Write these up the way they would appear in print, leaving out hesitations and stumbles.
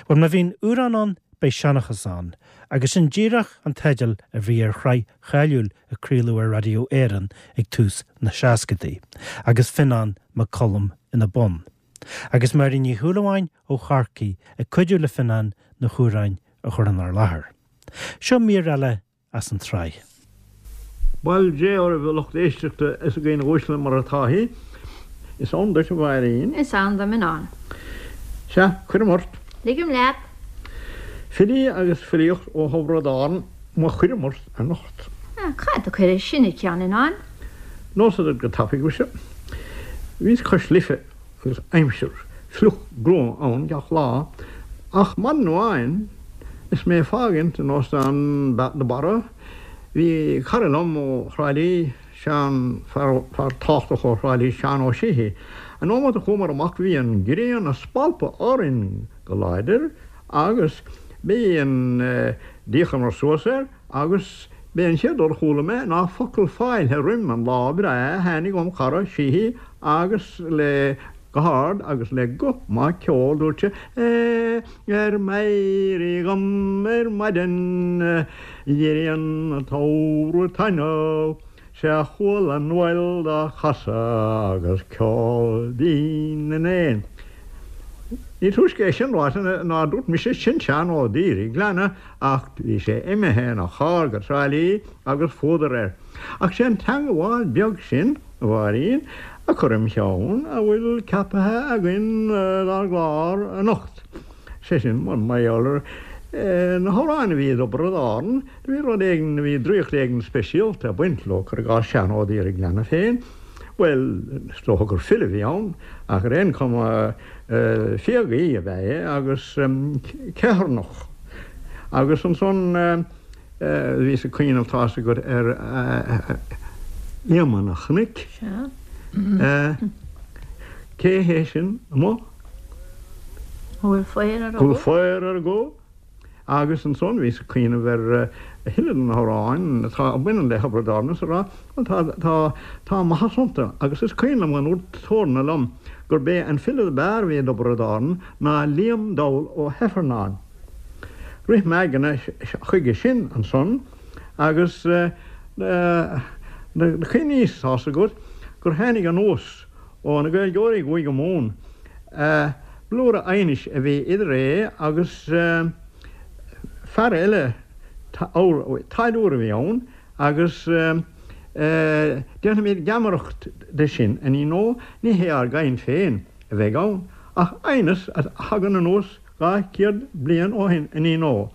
Bhuel, má bhíonn amhrán ann, beidh seanchas ann, agus sin díreach an teideal a bhí ar shraith cháiliúil a craoladh ar Raidió Éireann ag tús na seascadaí, agus Fionán Mac Coluim ina bun. Agus Máirín Ní Shúilleabháin ó Chorcaigh ag cuidiú le Fionán na hamhráin a chur inár láthair. Seo mír eile as an tsraith. Bail Dé oraibh a lucht éisteachta is a dhaoine uaisle mar atá thí. Is ann duit a Mháirín. Is ann dom a Fhionáin. Sea, cuirim ort. Ligim leat. Filí agus filíocht ó Thiobraid Árann mo chúram ort anocht. Cad a chuir sin id cheann, a Fhionáin? Neosad duit go tapaidh, mhuise. Bhíos cois Life agus aimsir fliuch gruama ann gach lá, ach maidin amháin is mé ag fágaint an Óstán de Barra, bhí cara liom ó Thrá Lí, Seán, fear tábhachtach ó Thrá Lí, Seán Ó Síthigh. An nóiméad a chuamar amach bhí an ghrian ag spalpadh orainn go láidir agus b'é an, d'fhéachamar suas air agus b'é an chéad rud a chuala mé ná focal fáilte roim an lá breá a tháinig óm chara Síthigh agus le go hard agus le guth maith ceoil dúirt sé Ar m'éirí dhom ar maidin dh'éirigh an tsamhradh taitneamh 'Sea chuala an fhuil dá chasadh agus ceol binn na n-éan. Ní túisce é sin ráite ná dúirt mise sin Seán Ó D'iarghleanna ach bhí sé imithe ina charr go Trá Lí agus fuadar air. Ach sé an teangabháil beag sin, a Mháirín, a chuir im cheann a bhfuil ceapaithe againn dár gclár anocht. Sé sin, mar gheall ar na hamhráin a bhí i dTiobraid Árann, do bhí rud éigin, bhí draíocht éigin speisialta ag baint leo, cuir i gcás Seán Ó D'iarghleanna féin. Bhuel, is dócha gur file a bhí ann, ach ar aon chuma, fiagaí ab ea é agus ceithearnach. Agus ansan bhíos ag cuimhneamh, tá's agat, ar Éamonn an Chnoic. Cé hé sin amuigh? An bhfuil faobhar ar a gó? Bhfuil faobhar ar a gó? Agus ansan bhíos ag cuimhneamh ar a thuilleadh de na hamhráin atá a bhaineann le Thiobraid Árann is a rá, bhuel tá, tá, tá maitheas iontu agus is cuimhin liom go ndúirt Torna liom gurb é an file ab fhearr a bhí i dTiobraid Árann ná Liam Dall Ó hIfearnáin. Rith m'aigne chuige sin ansan agus do chuimhníos, tá's agat, gur tháinig anuas ó na Gaeilgeoirí i gCúige Mumhan, blúire aighnis a bhí idir é agus fear eile, táilliúir a bhí ann, agus déanfaimid geamaireacht de sin, a Iníon ó, ní hé ár gcaint féin a bheidh ann, ach aighneas a thagann anuas 200 bliain ó shin, a Iníon ó.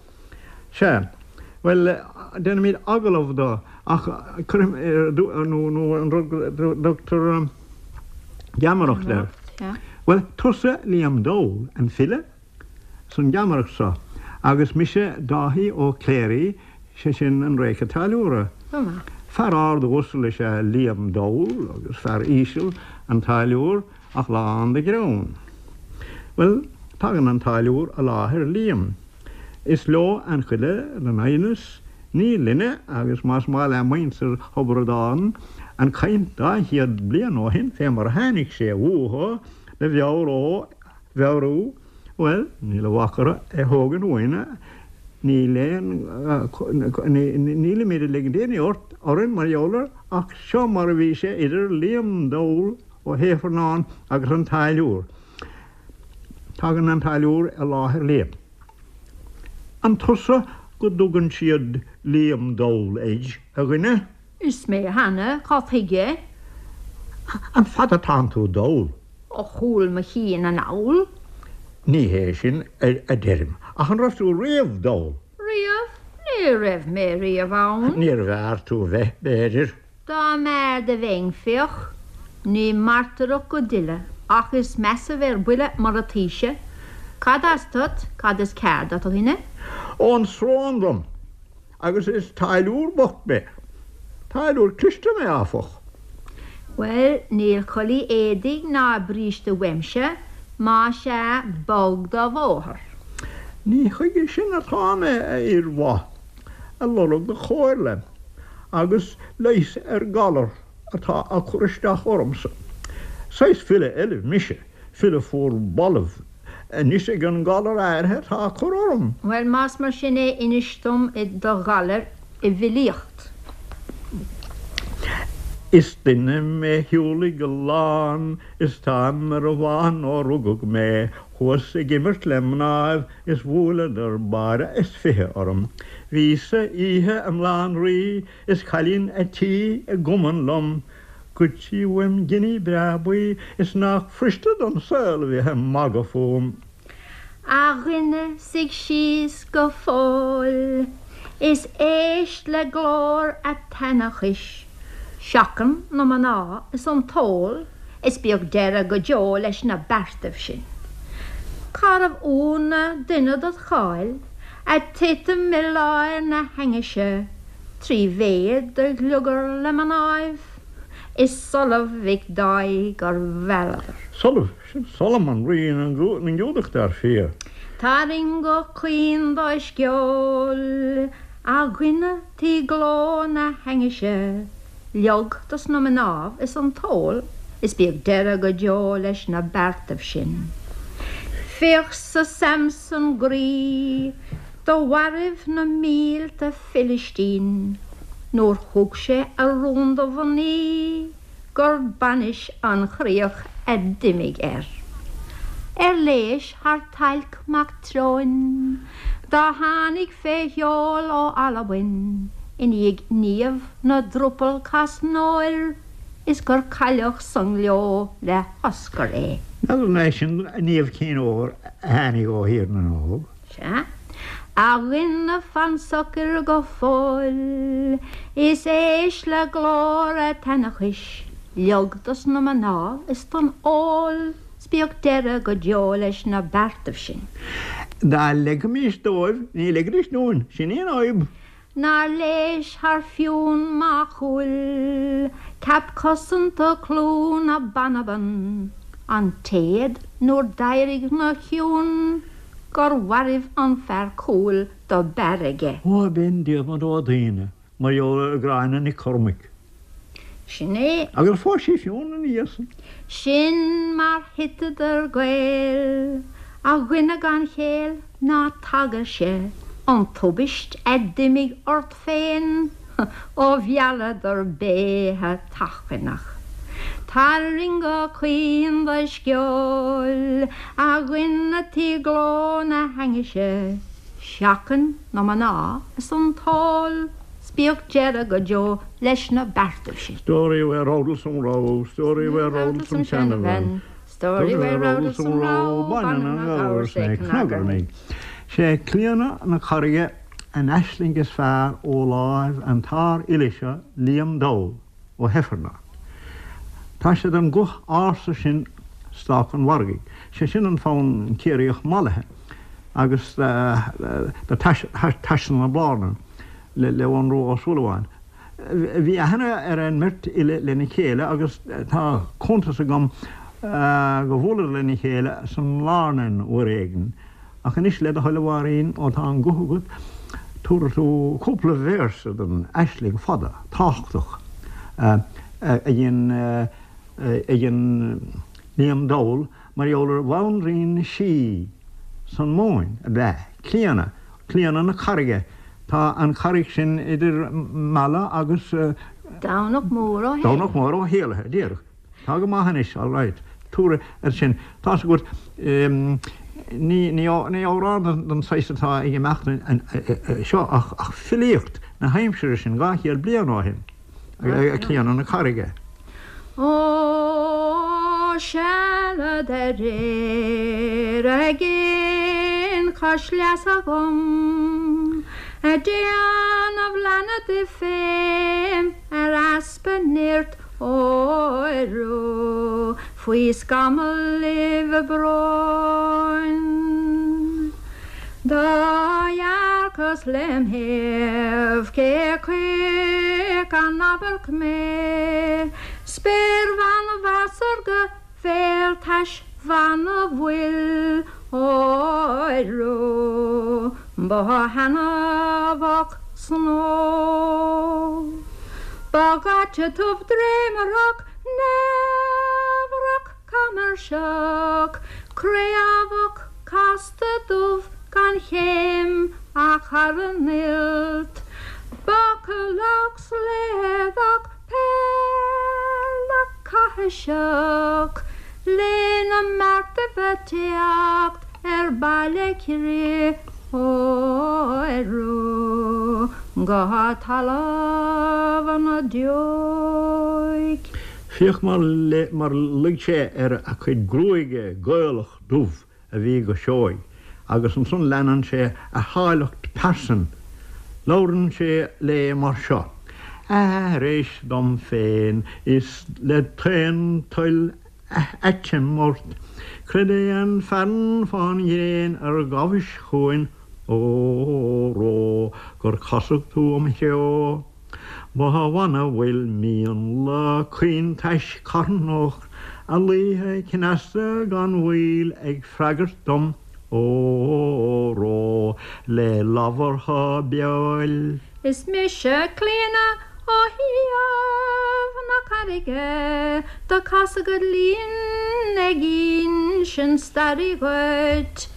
Sea. Bhuel, déanfaimid agallamh do, ach cuirfidh, nó an rud go dtugtar geamaireacht air. Bhuel, tusa Liam Dall, an file, san gheamaireacht seo, agus mise Dáithí Ó Cléirigh, sé sin an réice táilliúra. Fear ard uasal is ea Liam Dall agus fear íseal an táilliúr ach lán de ghreann. Bhuel, tagann an táilliúr i láthair Liam. Is leo an chuile den aighneas, ní linne, agus más maith le muintir Thiobraid Árann an chaint 200 bliain ó shin fé mar a tháinig sé uathu do mheabhró, mheabhrú, bhuel, níl a bhac orthu é thógaint uainn, níl aon, nílimid ag ligint aon ní orainn mar gheall air, ach seo mar a bhí sé idir Liam Dall Ó hIfearnáin agus an táilliúr. Tagann an táilliúr i láthair Liam. An tusa go dtugann siad Liam Dall air, a dhuine? Is mé cheana, cad chuige? An fada atánn tú dall? Ó chúl mo chinn anall. Ní hé sin a deirim, ach an raibh tú riamh dall? Riamh? Ní raibh mé riamh ann. Níorbh fhearr tú bheith, b'fhéidir. Dá mb'fhearr do bheinn, féach, ní mairteoireacht go dtuile, ach is measa bheith ar buile mar ataoise. Cad as duit, cad is cearr duit, a dhuine? Ón Srón dom, agus is táilliúr bocht mé. Táilliúr cliste mé, áfach. Bhuel, níl culaith éadaigh ná bríste uaimse, más ea, bog do bhóthar. Ní chuige sin atá mé, a fhir mhaith. ag lorg do chomhairle agus leighis ar ghalar atá ag cur isteach ormsa. Saghas file eile mise, file fuar balbh. Anois ag an ngalar áirithe atá ag cur orm. Bhuel, más mar sin é, inis dom do ghalar i bhfilíocht. Is duine mé shiúlaigh a lán is táim ar an bhfán ó rugadh mé. Chuas ag imirt le mnáibh is bhuaileadar báire is 20 orm. Bhíos-sa oíche i mBaile an Rí is cailín a' tí i gcumann liom. Ghoid sí uaim giní breá buí is nách fuiriste don saol a bheith ag magadh fúm. A dhuine, suigh síos go fóill is éist le glór a' tseanchais, Seachain na mná is an t-ól is bíodh deireadh go deo leis na beartaibh sin. Cárbh ionadh duine dod cháil a' titim i lár na hainnise 3 mhéad do ghliogar le mnáibh is Solamh Mhic Dáith gur mhealladar. Solamh, sin Solomon, rí na nGiúdach, dar fia. Tarraing go caoin do sceol, a dhuine tí gleo na hainnise, leog dos na mnáibh is an t-ól is bíodh deireadh go deo leis na beartaibh sin. Féach-sa Samson groí do mhairbh na mílte Filistín nuair thug sé a rún do mhnaoi gur bainis an chríoch a d'imigh air. Ar léis thar Tailc mac Treoin dá tháinig fé sheol ó Albain i ndiaidh Niamh na dTrupall Casnóir is gur cailleadh sa ngleo le hOscar é. N'fheadar an é sin Niamh Chinn Óir a tháinig ó Thír na nÓg? Sea, a dhuine fan socair go fóill is éist le glór a' tseanchais, leog dos na mná is don ól 's bíodh deireadh go deo leis na beartaibh sin. Dá leigfimís dóibh, ní ligfidís dúinn, sin í an fhadhb. Nár léis thar Fionn Mac Cumhaill, ceap cosanta clú na Banban, an téad nuair d'éirigh 'na chionn gur mhairbh an fear cúil do b'fhearr aige. Ó, b'in Diarmaid Ó Duibhne, mar gheall ar Ghráinne Nic Chormaic. Sin é. Agus phós sí Fionn ina dhiaidh san. Sin mar thiteadar Gaeil, a dhuine gan chéill. Ná tagairse an tubaist a d'imigh ort féin ó mhealladar béithe tachaineach. Tarraing go caoin do sceoil, a dhuine tí gleo na hainnise, seachain na mná is an t-ól 's bíodh deireadh go deo leis na beartaibh sin. Story where Rodalsum row, story where Rodalsum seanabhean, Story where Rodalsum row, baineann an gabhar 's é cnagarnaigh. Sé Clíona na Carraige an aisling is fearr ó láimh an tsárfhile seo Liam Dall Ó hIfearnáin. Tá sé den ghuth ársa sin Stáca an Mhargaidh, sé sin an fonn Ciarraíoch mallaithe agus do Taisne na Blárnan le Eoghan Rua Ó Súilleabháin. Bhí aithne ar an mbeirt fhile lena chéile agus tá cuntas agam go bhuaileadar lena chéile sa mBlárnain uair éigin. Ach anois, le do thoil a Mháirín, ó tá an guth agat, tabharfaidh tú cúpla véarsa den aisling fada, tábhachtach a dhein a dhein Liam Dall mar gheall ar bhanríon sí san Mumhain, ab ea Clíona, Clíona na Carraige. Tá an charraig sin idir Mala agus. Domhnach Mór Ó hÉallaithe. Domhnach Mór Ó hÉallaithe, díreach. Tá go maith anois, all right. Tabhair ar sin. Tá's agat, ní, ní amhrán den saghas atá ag imeacht seo ach filíocht na haimsire sin, 200 bliain ó shin. Clíona na Carraige. Ó, sealad aréir ag aon chois leasa dhom, a' déanamh leanna di fém ar easpa nirt óró faoi scamall bróin. Do dhearcas lem thaobh cé chuige an amharc mé, spéirbhean mheasartha bhéaltais bhan a bhfuil óró ba thaitneamhach snó. Ba dhaite dubh dréimearach neamhreach camairseach craobhach. Casta dubh gan chéim ach thar an fholt, Bacalach slaodach peilleach caithiseach Lena mbeartaibh a' teacht ar Baile Crith Óró go talamh na deoigh. Féach mar luigh sé ar a cuid gruaige Gaelach dubh a bhí go seoigh agus ansan leanann sé a háilleacht pearsan. Labhrann sé léi mar seo, Aithris dom féin is le d'aon toil aiteim ort, Creid é an fearann fán ghréin ar ghabhais chugainn, óró, gur casadh tú im threo. Ba bh'annamh bhfuil mionlach caointais carthanach a luífeadh cneasta gan mhoill ag freagairt dom, óró, le labhartha beoil. Is mise Clíona ó thaobh na carraige do casadh id linn ag insint staire dhuit.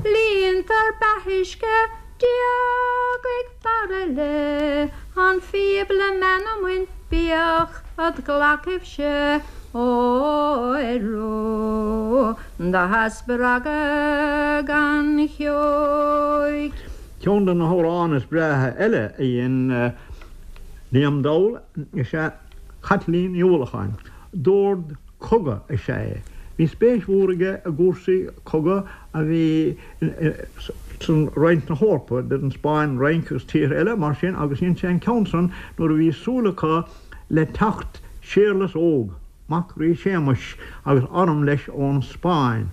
Líontar beathuisce Diagaigh fear eile an phíob le meanman bíodh id ghlacaibhse óró do spreagadh gan cheoigh. Ceann de na hamhráin is breátha eile a dhein Liam Dall is ea Caitlín Ní Uallacháin. Dord cogaidh is ea é. Bhí spéis mhór aige i gcúrsaí cogaidh a bhí san roinnt na hEorpa, idir an Spáinn, an Fhrainc agus tíortha eile mar sin agus dhein sé an ceann san nuair a bhí súil acu le teacht Séarlas Óg, mac Rí Séamuis, agus arm leis ón Spáinn.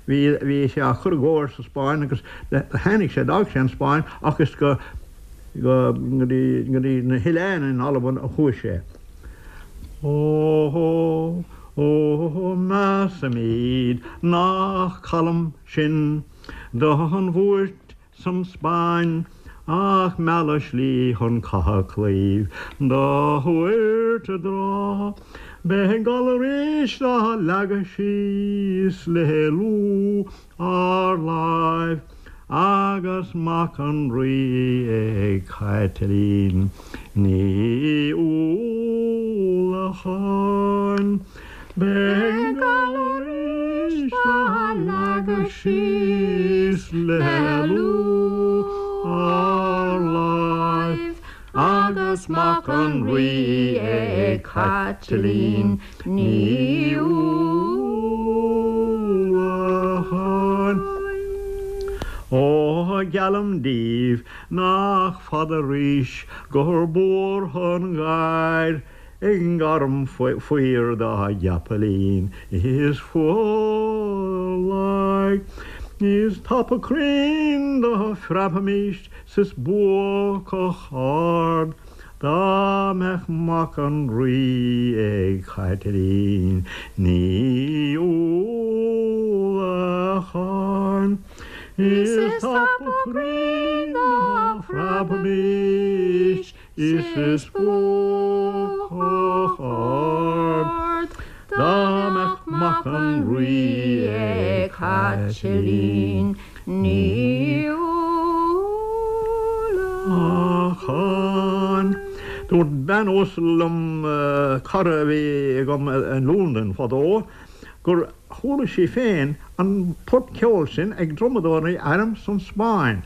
Bhí, bhí sé á chur i gcóir sa Spáinn agus tháinig sé, d'fhág sé an Spáinn ach is go, go, go dtí, go dtí na hoileáin in Albain a chuaigh sé. Ó, ó, measaimid nach calm sinn don bhuairt san Spáinn ach mealladh slí chun catha claíomh do thabhairt i dtráth. Beidh gal arís dá leagadh síos le lúth ár láimh agus mac an Rí ag Caitlín Ní Uallacháin. Beidh gal arís dá leagadh síos le lúth ár láimh agus mac an Rí ag Caitlín Ní Uallacháin. Ó, geallaim daoibh nach fada arís gur buartha an ghair i ngairm faoir dá gceapaillín is fuadhlaigh. Is tapa cruinn dá phreabfaimís 's is buacach ard dá mbeadh mac an Rí ag Caitlín Ní Uallacháin. Is tapa cruinn dá phreabfaimís is is buacach ard dá mbeadh mac an Rí ag Caitlín Ní Uallacháin. Dúirt bean uasal liom, cara a bhí agam i Londain fadó, gur chuala sí féin an port ceoil sin ag drumadóirí airm san Spáinn,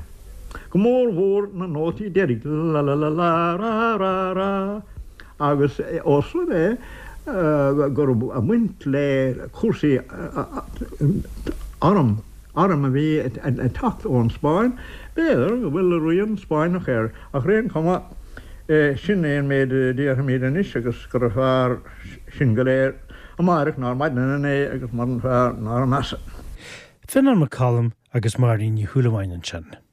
go mór mhór na nótaí deiridh, la-la-la-la-ra-ra-ra, agus ós rud é go raibh baint le cúrsaí arm, arm a bhí ag teacht ón Spáinn, b'fhéidir go bhfuil rian Spáinneach air, ach ar aon chuma, sin é an méid a déarfaimid anois agus gurbh fhearr sinn go léir amáireach ná ar maidin inné agus muran fearr ná ar measa. Fionán Mac Coluim agus Máirín Ní Shúilleabháin ansin.